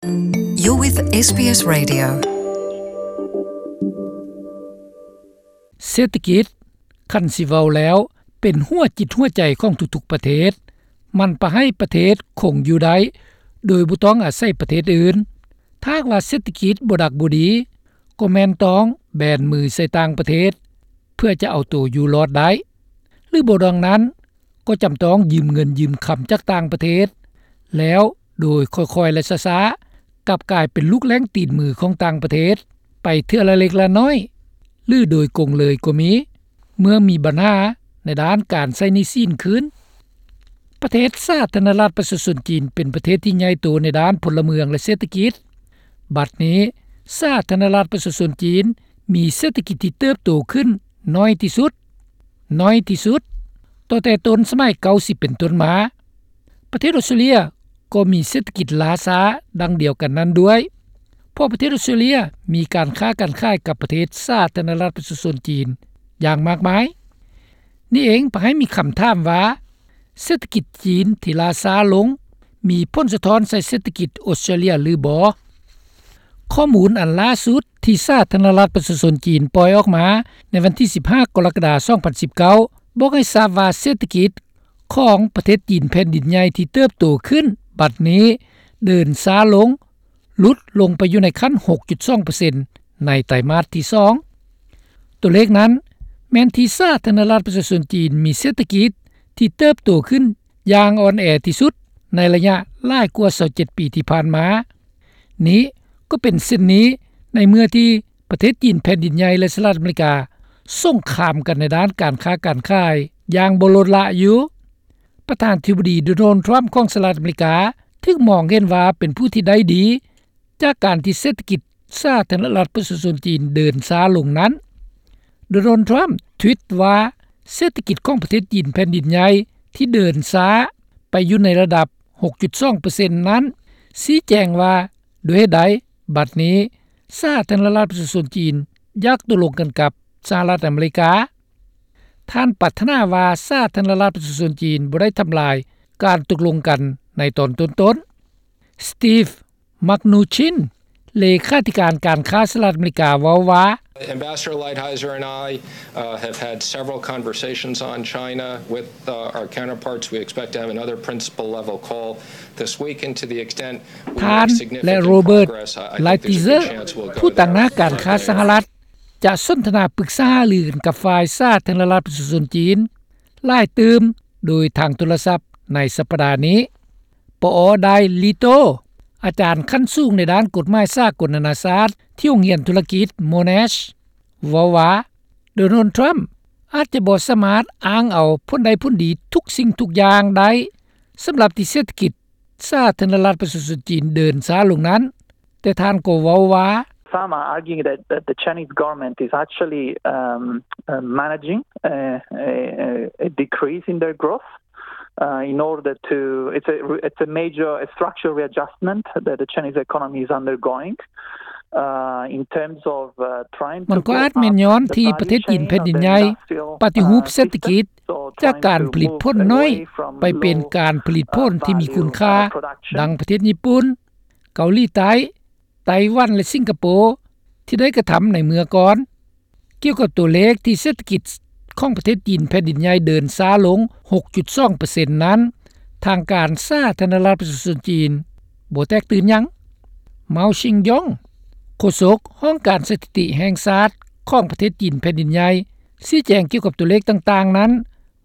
You're with เอส บี เอส Radio. ເສດຖະກິດ ຄັນຊິເວົ້າແລ້ວ ເປັນຫົວຈິດຫົວໃຈຂອງທຸກໆປະເທດ. ມັນປະໃຫ້ປະເທດຄົງຢູ່ໄດ້ ໂດຍບໍ່ຕ້ອງອາໄສປະເທດອື່ນ. ຖ້າຫາກວ່າເສດຖະກິດບໍ່ດັກບໍ່ດີ ກໍແມ່ນຕ້ອງແບນມືໃສ່ຕ່າງປະເທດ ເພື່ອຈະເອົາໂຕຢູ່ລອດໄດ້ ຫຼືບໍ່ດັ່ງນັ້ນ ກໍຈຳຕ້ອງຢືມເງິນຢືມຄຳຈາກຕ່າງປະເທດ ແລ້ວໂດຍຄ່ອຍໆ ແລະ ຊ້າໆ ກັບກາຍເປັນລູກແລ້ງຕີນມືຂອງຕ່າງປະເທດ ໄປເທື່ອລະເລັກລະນ້ອຍ ຫຼືໂດຍກົງເລີຍກໍມີ ເມື່ອມີບັນຫາໃນດ້ານການໃຊ້ໜີ້ສິນຄືນ. ປະເທດສາທາລະນະລັດປະຊາຊົນຈີນ ເປັນປະເທດທີ່ໃຫຍ່ໂຕໃນດ້ານພົນລະເມືອງ ແລະ ເສດຖະກິດ. ບັດນີ້ ສາທາລະນະລັດປະຊາຊົນຈີນ ມີເສດຖະກິດທີ່ເຕີບໂຕຂຶ້ນໜ້ອຍທີ່ສຸດ, ໜ້ອຍທີ່ສຸດ ຕັ້ງແຕ່ຕົ້ນສະໄໝເກົ້າສິບເປັນຕົ້ນມາ. ປະເທດອອສເຕຣເລຍກໍມີເສດຖະກິດລ້າຊ້າດັ່ງດຽວກັນນັ້ນດ້ວຍ, ເພາະປະເທດອອສເຕຣເລຍມີການຄ້າການຂາຍກັບປະເທດສາທາລະນະລັດປະຊາຊົນຈີນຢ່າງມາກມາຍ. ນີ້ເອງພາໃຫ້ມີຄຳຖາມວ່າ ເສດຖະກິດຈີນທີ່ລ້າຊ້າລົງ ມີຜົນສະທ້ອນໃສ່ເສດຖະກິດອອສເຕຣເລຍຫຼືບໍ່? ຂໍ້ມູນອັນລ່າສຸດທີ່ສາທາລະນະລັດປະຊາຊົນຈີນປ່ອຍອອກມາໃນວັນທີສິບຫ້າ ກໍລະກະດາ ສອງພັນສິບເກົ້າ ບອກໃຫ້ຊາບວ່າເສດຖະກິດຂອງປະເທດຈີນແຜ່ນດິນໃຫຍ່ທີ່ເຕີບໂຕຂຶ້ນບັດນີ້ເດີນຊ້າລົງ ຫຼຸດລົງໄປຢູ່ໃນຂັ້ນ ຫົກຈຸດສອງເປີເຊັນ ໃນໄຕມາດທີສອງ. ຕົວເລກນັ້ນແມ່ນທີ່ສາທາລະນະລັດປະຊາຊົນຈີນມີເສດຖະກິດທີ່ເຕີບໂຕຂຶ້ນຢ່າງອ່ອນແອທີ່ສຸດໃນໄລຍະຫຼາຍກວ່າຊາວເຈັດປີທີ່ຜ່ານມາ. ນີ້ກໍເປັນເຊັ່ນນີ້ໃນເມື່ອທີ່ປະເທດຈີນແຜ່ນດິນໃຫຍ່ ແລະ ສະຫະລັດອາເມລິກາສົງຄາມກັນໃນດ້ານການຄ້າການຂາຍຢ່າງບໍ່ລົດລະຢູ່. ປະທານທິບໍດີ ໂດນັລ ທຣຳ ຂອງສະຫະລັດອາເມລິກາ ຖືກມອງເຫັນວ່າເປັນຜູ້ທີ່ໄດ້ດີ ຈາກການທີ່ເສດຖະກິດສາທາລະນະລັດປະຊາຊົນຈີນເດີນຊ້າລົງນັ້ນ. ໂດນັລ ທຣຳ ທວິດວ່າ ເສດຖະກິດຂອງປະເທດຈີນແຜ່ນດິນໃຫຍ່ທີ່ເດີນຊ້າໄປຢູ່ໃນລະດັບ ຫົກຈຸດສອງເປີເຊັນ ນັ້ນ ຊີ້ແຈງວ່າດ້ວຍເຫດໃດບັດນີ້ສາທາລະນະລັດປະຊາຊົນຈີນຢາກຕົກລົງກັນກັບສະຫະລັດອາເມລິກາ. ທ່ານປາດຖະໜາວ່າສາທາລະນະລັດປະຊາຊົນຈີນບໍ່ໄດ້ທຳລາຍການຕົກລົງກັນໃນຕອນຕົ້ນໆ. ສະຕີບ ມາກນູຊິນ ເລຂາທິການການຄ້າສະຫະລັດອາເມລິກາເວົ້າວ່າ Ambassador Lighthizer and I, uh, have had several conversations on China with, uh, our counterparts. We expect to have another principal level call this week, and to the extent we make significant progress, I, I think there's a good chance we'll go there. ທ່ານ ແລະ ໂຣເບີດ ໄລຕີເຊີ ຜູ້ຕາງໜ້າການຄ້າສະຫະລັດ ຈະສົນທະນາປຶກສາຫາລືກັນກັບຝ່າຍສາທາລະນະລັດປະຊາຊົນຈີນຫຼາຍຕື່ມໂດຍທາງໂທລະສັບໃນສັບປະດານີ້. ປອ ໄດລີໂຕ ອາຈານຂັ້ນສູງໃນດ້ານກົດໝາຍສາກົນນານາຊາດທີ່ໂຮງຮຽນທຸລະກິດ Monash ເວົ້າວ່າ ໂດນັລ ທຣຳ ອາດຈະບໍ່ສາມາດອ້າງເອົາຜົນໄດ້ຜົນດີທຸກສິ່ງທຸກຢ່າງໄດ້ ສຳລັບທີ່ເສດຖະກິດສາທາລະນະລັດປະຊາຊົນຈີນເດີນຊ້າລົງນັ້ນ. ແຕ່ທ່ານກໍເວົ້າວ່າ Some are arguing that, that the Chinese government is actually, um, uh, managing a, a, a decrease in their growth, uh, in order to, it's a, it's a major, a structural readjustment that the Chinese economy is undergoing, uh, in terms of, uh, trying to ມັນກໍອາດແມ່ນຍ້ອນທີ່ປະເທດຈີນແຜ່ນດິນໃຫຍ່ປະຕິຮູບເສດຖະກິດ ຈາກການຜະລິດຜົນໜ້ອຍ ໄປເປັນການຜະລິດຜົນທີ່ມີຄຸນຄ່າ ດັ່ງປະເທດຍີ່ປຸ່ນ, ເກົາຫຼີໃຕ້, ໄຕ້ຫວັນ ແລະ ສິງກະໂປ ທີ່ໄດ້ກະທຳໃນເມື່ອກ່ອນ. ກ່ຽວກັບຕົວເລກທີ່ເສດຖະກິດຂອງປະເທດຈີນແຜ່ນດິນໃຫຍ່ເດີນຊ້າລົງ ຫົກຈຸດສອງເປີເຊັນ ນັ້ນ, ທາງການສາທາລະນະລັດປະຊາຊົນຈີນບໍ່ແຕກຕື່ນຫຍັງ. ເມົາ ຊິງຢອງ ໂຄສົກຫ້ອງການສະຖິຕິແຫ່ງຊາດຂອງປະເທດຈີນແຜ່ນດິນໃຫຍ່ ຊີ້ແຈງກ່ຽວກັບຕົວເລກຕ່າງໆນັ້ນ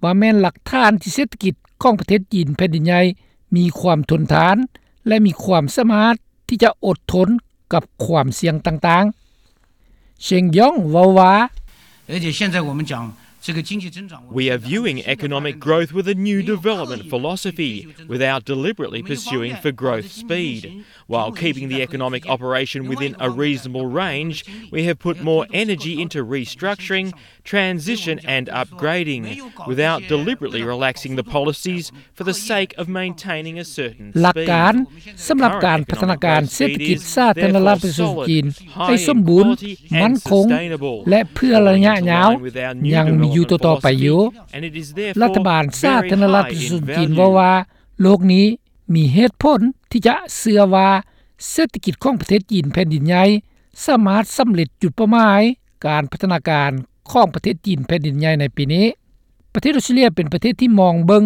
ວ່າແມ່ນຫຼັກຖານທີ່ເສດຖະກິດຂອງປະເທດຈີນແຜ່ນດິນໃຫຍ່ມີຄວາມທົນທານ ແລະ ມີຄວາມສາມາດທີ່ຈະອົດທົນກັບຄວາມສ່ຽງຕ່າງໆ. ເຊິງຢອງເວົ້າວ່າ We are viewing economic growth with a new development philosophy without deliberately pursuing for growth speed. While keeping the economic operation within a reasonable range, we have put more energy into restructuring, transition and upgrading, without deliberately relaxing the policies for the sake of maintaining a certain ຫຼັກການ ສຳລັບການພັດທະນາການເສດຖະກິດສາທາລະນະລັດປະຊາຊົນຈີນໃຫ້ສົມບູນ, ໝັ້ນຄົງ ແລະ ເພື່ອໄລຍະຍາວ ຍັງມີຢູ່ຕໍ່ໆໄປຢູ່. ລັດຖະບານສາທາລະນະລັດປະຊາຊົນຈີນເວົ້າວ່າ ໂລກນີ້ມີເຫດຜົນທີ່ຈະເຊື່ອວ່າ ເສດຖະກິດຂອງປະເທດຈີນແຜ່ນດິນໃຫຍ່ ສາມາດສຳເລັດຈຸດເປົ້າໝາຍການພັດທະນາການຂອງປະເທດຈີນແຜ່ນດິນໃຫຍ່ໃນປີນີ້. ປະເທດອອສເຕຣເລັຽເປັນປະເທດທີ່ມອງເບິ່ງ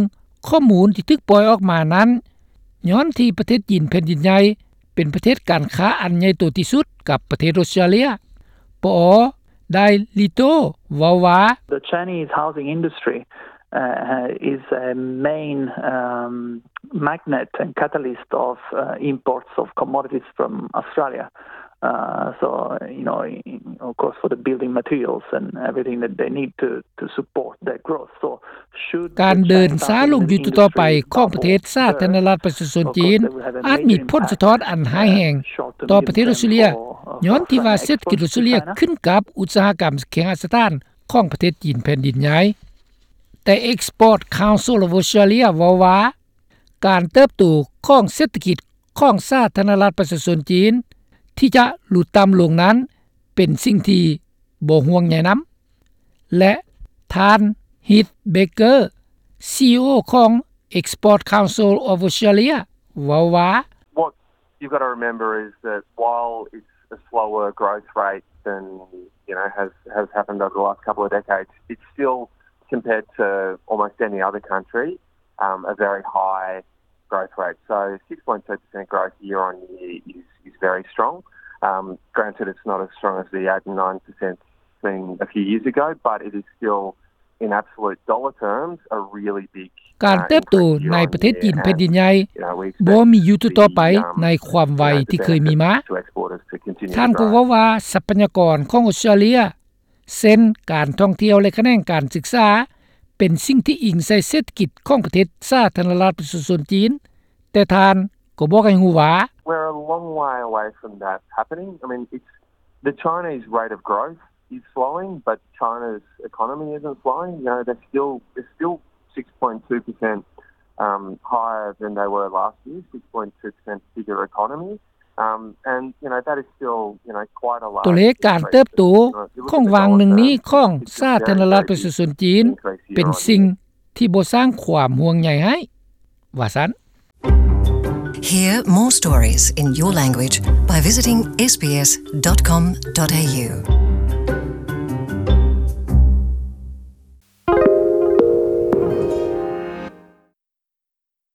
ຂໍ້ມູນທີ່ຖືກປ່ອຍອອກມານັ້ນ ຍ້ອນທີ່ປະເທດຈີນແຜ່ນດິນໃຫຍ່ເປັນປະເທດການຄ້າອັນໃຫຍ່ໂຕທີ່ສຸດກັບປະເທດອອສເຕຣເລັຽ. ປອ ໄດລີໂຕ ເວົ້າວ່າ The Chinese housing industry uh, is a main um, magnet and catalyst of uh, imports of commodities from Australia. Uh, so, you know, of course, for the building materials and everything that they need to, to support their growth. So, ການເດີນຊ້າລົງຢູ່ຕໍ່ໆໄປຂອງປະເທດສາທາລະນະລັດປະຊາຊົນຈີນ ອາດມີຜົນສະທ້ອນອັນຮ້າຍແຮງຕໍ່ປະເທດອອສເຕຣເລັຽ ຍ້ອນທີ່ວ່າເສດຖະກິດອອສເຕຣເລັຽຂຶ້ນກັບອຸດສາຫະກຳເຄຫະສະຖານຂອງປະເທດຈີນແຜ່ນດິນໃຫຍ່. ແຕ່ Export Council of Australia ເວົ້າວ່າ ການເຕີບໂຕຂອງເສດຖະກິດຂອງສາທາລະນະລັດປະຊາຊົນຈີນ ທີ່ຈະຫຼຸດຕ່ຳລົງນັ້ນ ເປັນສິ່ງທີ່ບໍ່ຫ່ວງໃຍນຳ. ແລະ ທ່ານ Heath Baker, CEO ຂອງ Export Council of Australia ເວົ້າວ່າ What you've got to remember is that while it's a slower growth rate than, you know, has, has happened over the last couple of decades, it's still, compared to almost any other country, um, a very high growth rate. So six point two percent growth year on year is, is very strong. Um, granted, it's not as strong as the eight and nine percent seen a few years ago, but it is still, in absolute dollar terms, a really big ການເຕີບໂຕໃນປະເທດຈີນແຜ່ນດິນໃຫຍ່ ບໍ່ມີຢູ່ຕໍ່ໆໄປໃນຄວາມໄວທີ່ເຄີຍມີມາ. ທ່ານກໍເວົ້າວ່າ ຊັບພະຍາກອນຂອງອອສເຕຣເລັຽ ເຊັ່ນ ການທ່ອງທ່ຽວ ແລະ ຂະແໜງການສຶກສາ ເປັນສິ່ງທີ່ອີງໃສ່ເສດຖະກິດຂອງປະເທດສາທາລະນະລັດປະຊາຊົນຈີນ, ແຕ່ທ່ານກໍບອກໃຫ້ຮູ້ວ່າ We're a long way away from that happening. I mean, it's, the Chinese rate of growth is slowing, but China's economy isn't slowing. You know, they're still, they're still six point two percent, um, higher than they were last year, six point two percent bigger economy. Um, and, you know, that is still, you know, quite a large ຕົວເລກການເຕີບໂຕຂອງຫວ່າງໜຶ່ງນີ້ຂອງສາທາລະນະລັດປະຊາຊົນຈີນ ເປັນສິ່ງທີ່ບໍ່ສ້າງຄວາມຫ່ວງໃຍໃຫ້ ວ່າຊັ້ນ. Hear more stories in your language by visiting S B S dot com dot A U.